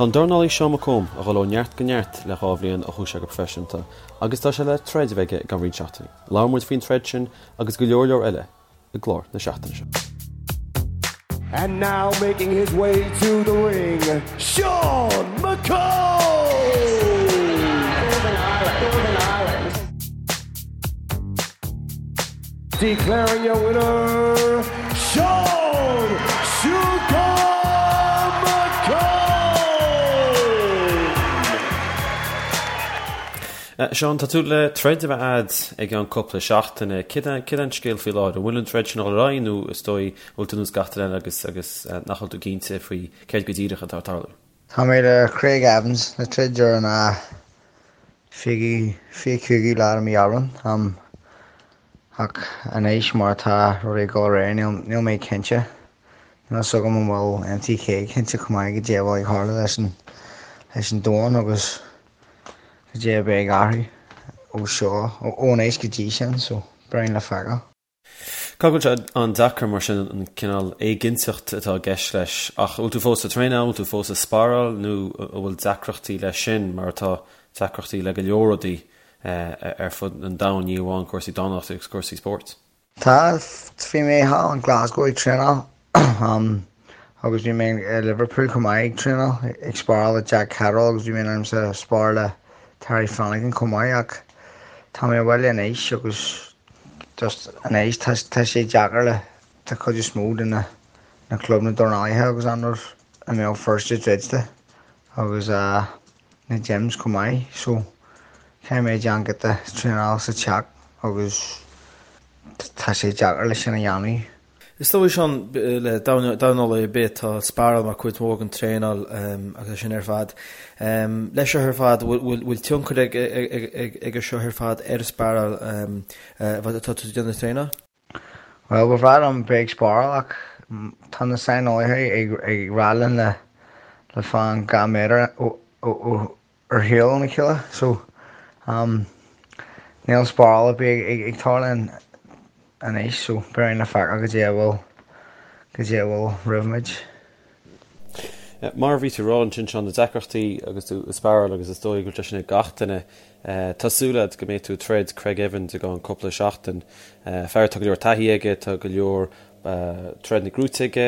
Tá an dornálaí Seán McComb ag dul ó neart go neart le 2 bhliain ó chuaigh sé go proifisiúnta agus tá sé le troid a bheith aige i gceann roinnt seachtainí. Labhair muid faoin troid sin agus go leor leor eile i gclár na seachtaine seo. And now making his way to the ring, Sean McComb! Declaring your winner, Sean Shooter McComb! Seán, tá tú le troid a bheith a'd i gceann cúpla seachtaine. Céard é an scéal faoi láthair? An bhfuil an troid sin ag dul ar aghaidh nó is dóigh an bhfuil tú ar nós gach duine eile agus agus nach bhfuil tú cinnte faoi céard go díreach atá ag tarlú? Tá mé le Craig Evans le troid ar an 25ú lá de mí Aibreán. Ach anois mar atá rudaí ag dul ar aghaidh níl mé cinnte. Níl fhios agam an bhfuil MTK cinnte chomh maith goidé a bhfuil ag tarlú leis an leis an domhan agus goidé a bheidh ag athrú ó seo, ó anois go dtí sin, so beidh le feiceáil. Caithfidh go bhfuil sé an-deacair mar sin an cineál éiginnteacht atá i gceist leis ach an bhfuil tú fós ag traenáil, an bhfuil tú fós ag sparáil nó an bhfuil deacrachtaí leis sin mar atá deacrachtaí le go leor rudaí ar fud an domhain, ní amháin cúrsaí dornálaíochta agus cúrsaí spóirt? Tá, bhí mé thall in Glasgow ag traenáil agus bhí mé i Liverpool chomh maith ag traenáil, ag sparáil le Jack Catterall agus bhí mé in ainm is a spar le Terry Flanagan chomh maith ach tá mé abhaile anois agus just anois tá tá sé deacair le tá cuid is mó de na na clubanna dornálaithe agus an rud i mBéal Feirste druidte agus na gyms chomh maith so caithfidh mé déanamh giota traenáil sa teach agus tá sé deacair le sin a dhéanamh. Is dóigh Seán, le dornálaí ar bith tá sparáil mar cuid mhór den traenáil agus é sin ar fad. Leis seo ar fad, bhfuil tionchar ag seo ar fad ar an sparáil atá tú ag déanamh traenáil? Bhuel, ba bhreá liom bheith ag sparáil ach tá na saineolaithe ag rá linn le le fan 2 méadar ar shiúl óna chéile so níl sparáil ar bith ag tarlú anois so beidh le feiceáil goidé a bhfuil goidé a bhfuil roimh muid. Mar a bhí tú ag rá ansin, Seán, na deacrachtaí agus tú ag sparáil agus is dóigh go bhfuil sé sin ag gach duine. Tá súil agat go mbeidh tú ag troid Craig Evans i gceann cúpla seachtain. Fear atá go leor taithí aige, tá go leor troideanna gnóite aige,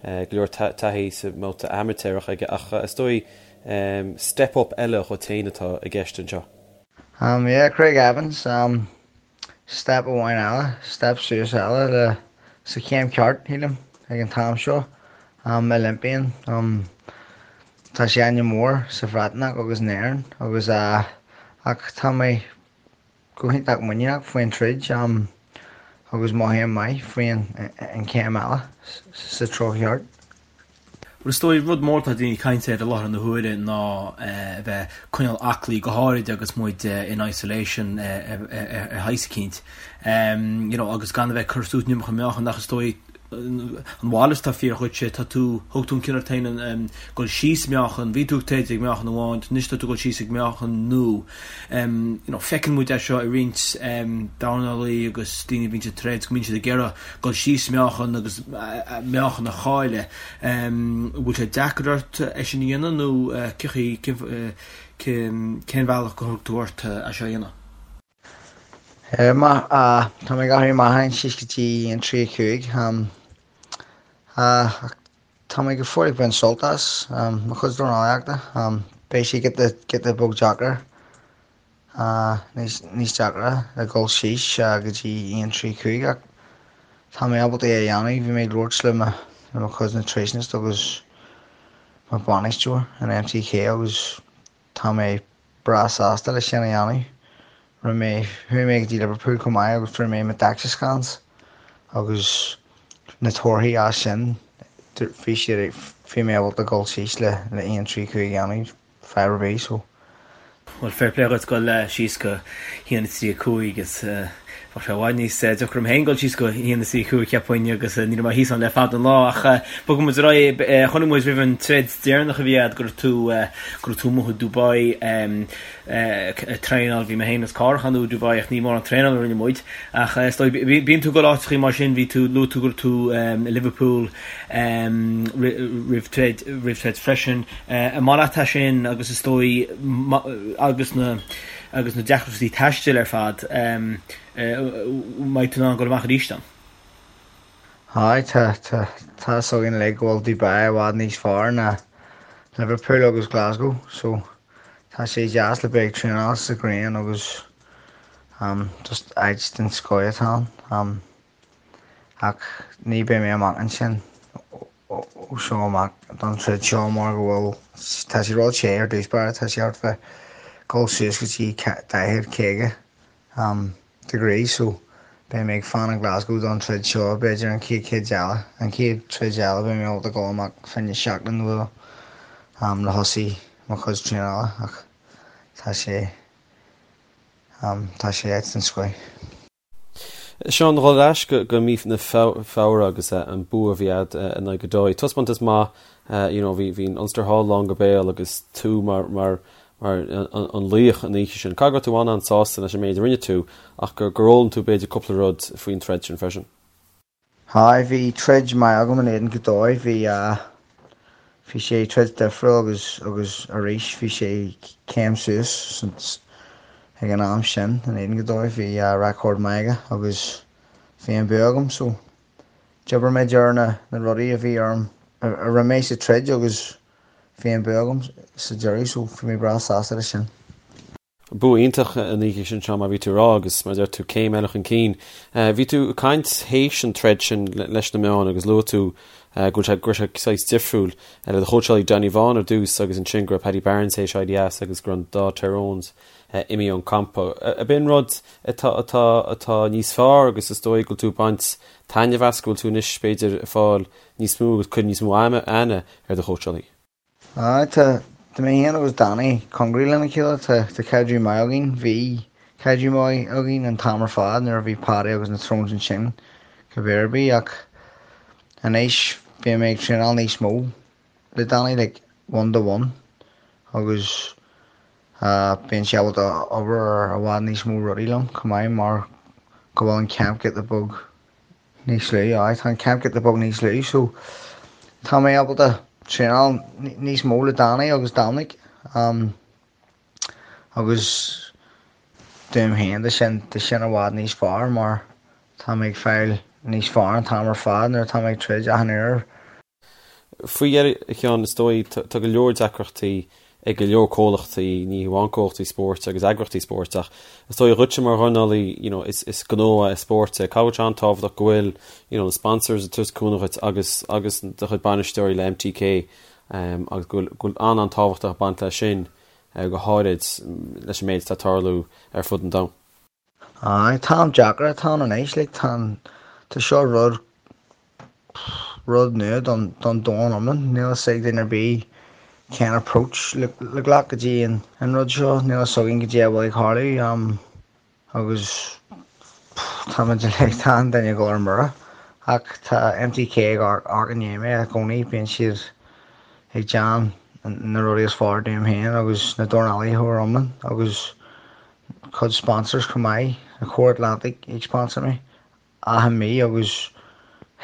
go leor taithí sa mbabhta amaitéarach aige ach is dóigh step up eile dhuit féin atá i gceist anseo. Yeah, Craig Evans. Step amháin eile, step suas eile le sa chéim ceart, shílim, ag an t-am seo. Olympian, tá sé ainm mór sa Bhreatnach agus in Éirinn agus ach tá mé go hiontach muiníneach faoin troid agus mothaím maith faoin an chéim eile sa treo cheart. Bhuel, is dóigh, rud mór atá daoine ag caint air i láthair na huaire ná a bheith ag coinneáil aclaí, go háirid agus muid in isolation ar shaghas eicínt, you know, agus gan a bheith ag cur suas an iomarca meáchan ach is dóigh an mhalairt atá fíor dhuitse, tá tú, thug tú an cinneadh ort féin dul síos meáchan, bhí tú ag troid ag meáchan amháin, anois tá tú ag dul síos ag meáchan nua. You know, feiceann muid é seo i roinnt dornálaí agus daoine a bhíonn ag troid go mbíonn siad ag iarraidh dul síos meáchan agus meáchan a chailleadh. An bhfuil sé deacair ort é sin a dhéanamh nó cén bhealach gur thug tú ort é seo a dhéanamh? Tá mé ag athrú meáchain síos go dtí 1.35 ach tá mé go fóill ag baint sult as mo chuid dornálaíochta. Beidh sé giota beag deacair níos deacra le dhul síos go dtí 1 3 5 ach tá mé ábalta é a dhéanamh. Bhí mé ag labhairt le mo le mo chuid nutritionist agus mo bainisteoir in MTK agus tá mé breá sásta le sin a dhéanamh. Rinne mé, chuaigh mé go dtí Liverpool chomh maith agus fuair mé mo DEXA scans agus na torthaí as sin bhí siad, bhí mé ábalta dhul síos le le 1 3 5 a dhéanamh. fadhb ar bith so. Bhuel, fair play dhuit dul síos go haon 3 5 is. Bheadh sé i bhfad níos deacra dom féin dul síos go 1 is 25 cheapfainn agus ní raibh mé thíos ann le fada an lá ach bogfaidh muid ar aghaidh. Chonaic muid roimh an troid deireanach a bhí agat go raibh tú go raibh tú amuigh i Dubai ag traenáil. Bhí mé féin is Cárthach ann i Dubai ach ní mórán traenáil a rinne muid ach is dóigh bíonn tú ag dul áiteachaí mar sin bhí tú luaigh tú go raibh tú i Liverpool roimh troid roimh troid freisin. An maith leat é sin agus is dóigh agus na agus na deacrachtaí taistil ar fad, mbeidh tú in ann dul amach arís ann? Aye, tá, tá, tá fhios againn uilig go bhfuil Dubai i bhfad níos fearr ná Liverpool agus Glasgow, so tá sé deas le bheith ag traenáil sa ghrian agus um, just áit den scoith atá ann. Um, ach ní beidh mé amach ansin ó seo amach don troid seo mar go bhfuil, tá sé ró-the ar dtús báire, tá sé thart fá dul suas go dtí 40, 50 degrees so beidh mé ag fanacht i Glasgow don troid seo b'fhéidir an chéad chéad eile, an chéad troid eile beidh mé ábalta dul amach fá choinne seachtain nó dhó le thosaí mo chuid traenála ach tá sé, tá sé áit den scoith. Seán, dhul ar ais go mí na Feabhra agus an bua a bhí agat in aghaidh Godoy. Taispeántas maith, you know, bhí an Ulster Hall lán go béal agus tú mar mar mar an laoch an oíche sin. Caithfidh go raibh tú an-an-sásta leis an méid a rinne tú ach gur gur fhoghlaim tú b'fhéidir cúpla rud faoin troid sin freisin. Aye, bhí troid maith agam in éadan Godoy, bhí bhí sé troid difriúil agus agus arís bhí sé céim suas ag an am sin in éadan Godoy, bhí record maith aige agus bhí an bua agam so d'oibir mé ar na na rudaí a bhí orm a rinne mé sa troid agus bhí an bua agam sa deireadh so bhí mé breá sásta leis sin. Bua iontach an oíche sin, Seán, mar bhí tú ag rá agus mar a deir tú céim eile chun cinn. Bhí tú ag caint théis an troid sin leis na meáin agus luaigh tú go bhfuil sé, go raibh sé saghas difriúil le do chóitseálaí Johnny Vaughan ar dtús agus ansin go raibh Paddy Barnes théis éirí as agus go raibh an dá Tyrones imithe ón campa. Ab in rud atá, atá, atá níos fearr agus is dóigh go bhfuil tú ag baint taitneamh as, go bhfuil tú anois b'fhéidir ag fáil níos mó agus cur níos mó aithne ar do chóitseálaí? Aye, tá, tá mé féin agus Danny cóngarach lena chéile, tá, tá caidreamh maith againn, bhí caidreamh maith againn an t-am ar fad nuair a bhí Paddy agus na Tyrones ansin, cibé ar bith, ach anois bíonn mé ag traenáil níos mó le Danny, like one to one, agus bíonn sé ábalta obair ar i bhfad níos mó rudaí liom chomh maith mar go bhfuil an camp giota beag níos lú, aye, tá an camp giota beag níos lú so tá mé ábalta traenáil níos mó le Danny agus Dominic um, agus dom féin tá sin tá sin i bhfad níos fearr mar tá mé ag fáil níos fearr an t-am ar fad nuair atá mé ag troid achan uair. Faoi dheireadh, a Sheáin, is dóigh, tá go leor deacrachtaí ag go leor comhlachtaí, ní hamháin comhlachtaí spóirt agus eagraíochtaí spóirt, ach is dóigh dhuitse mar dhornálaí, you know, is is gnó é spórt é. Caithfidh sé an-tábhachtach go bhfuil, you know, na sponsors ag tabhairt cúnamh dhuit agus agus do chuid bainisteoirí le MTK agus go bhfuil go bhfuil an-an-tábhachtach ag baint leis sin, go háirid leis an méid atá ag tarlú ar fud an domhain. Aye, tá am deacair atá ann anois, like, tá an, tá seo rud, rud nua don, don domhan iomlán, níl a fhios ag duine ar bith cén approach le, le glacadh go dtí an, an rud seo, níl a fhios againn goidé a bhfuil ag tarlú, um, agus táimid uilig, tá an duine ag dul ar mire, ach tá MTK ag amharc i ndiaidh mé i gcónaí, bíonn siad ag déanamh na rudaí is fearr dom féin agus na dornálaithe ar iomlán agus cuid sponsors chomh maith, na Core Atlantic ag sponsor mé achan mí agus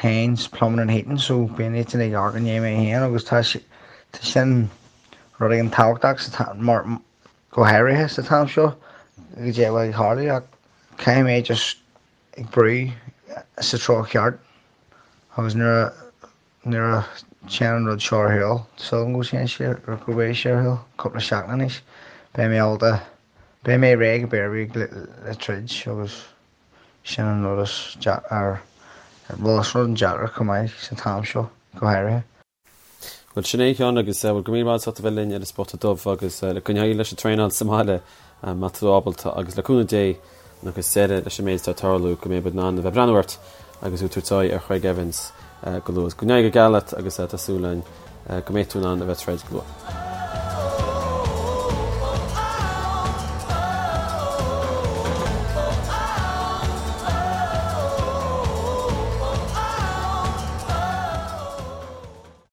Haynes Plumbing and Heating so bíonn iadsan ag amharc i ndiaidh mé féin agus tá tá sin rud éigin tábhachtach sa mar go háirithe sa t-am seo goidé a bhfuil ag tarlú ach caithfidh mé just ag brú sa treo cheart agus nuair a Nuair a théann an rud seo ar shiúl, súil agam go dtéann sé, go mbeidh sé ar shiúl, cúpla seachtain anois, beidh mé ábalta, beidh mé réidh cibé ar bith le, le troid agus sin an rud is deacair, bhuel is rud an-deacair chomh maith sa t-am seo, go háirithe. Bhuel, sin é a Sheáin agus bhuel go raibh míle maith agat as ucht a bheith linn ar an Spota Dubh agus le coinneáil leis an traenáil sa mbaile má tá tú ábalta agus le cúnamh Dé agus deireadh leis an méid atá ag tarlú go mbeidh muid in ann a bheith ag breathnú ort agus tú ag tabhairt aghaidh ar Chraig Evans go luath. Go n-éirí go geal leat agus tá súil againn go mbeidh tú in ann a bheith ag troid go luath.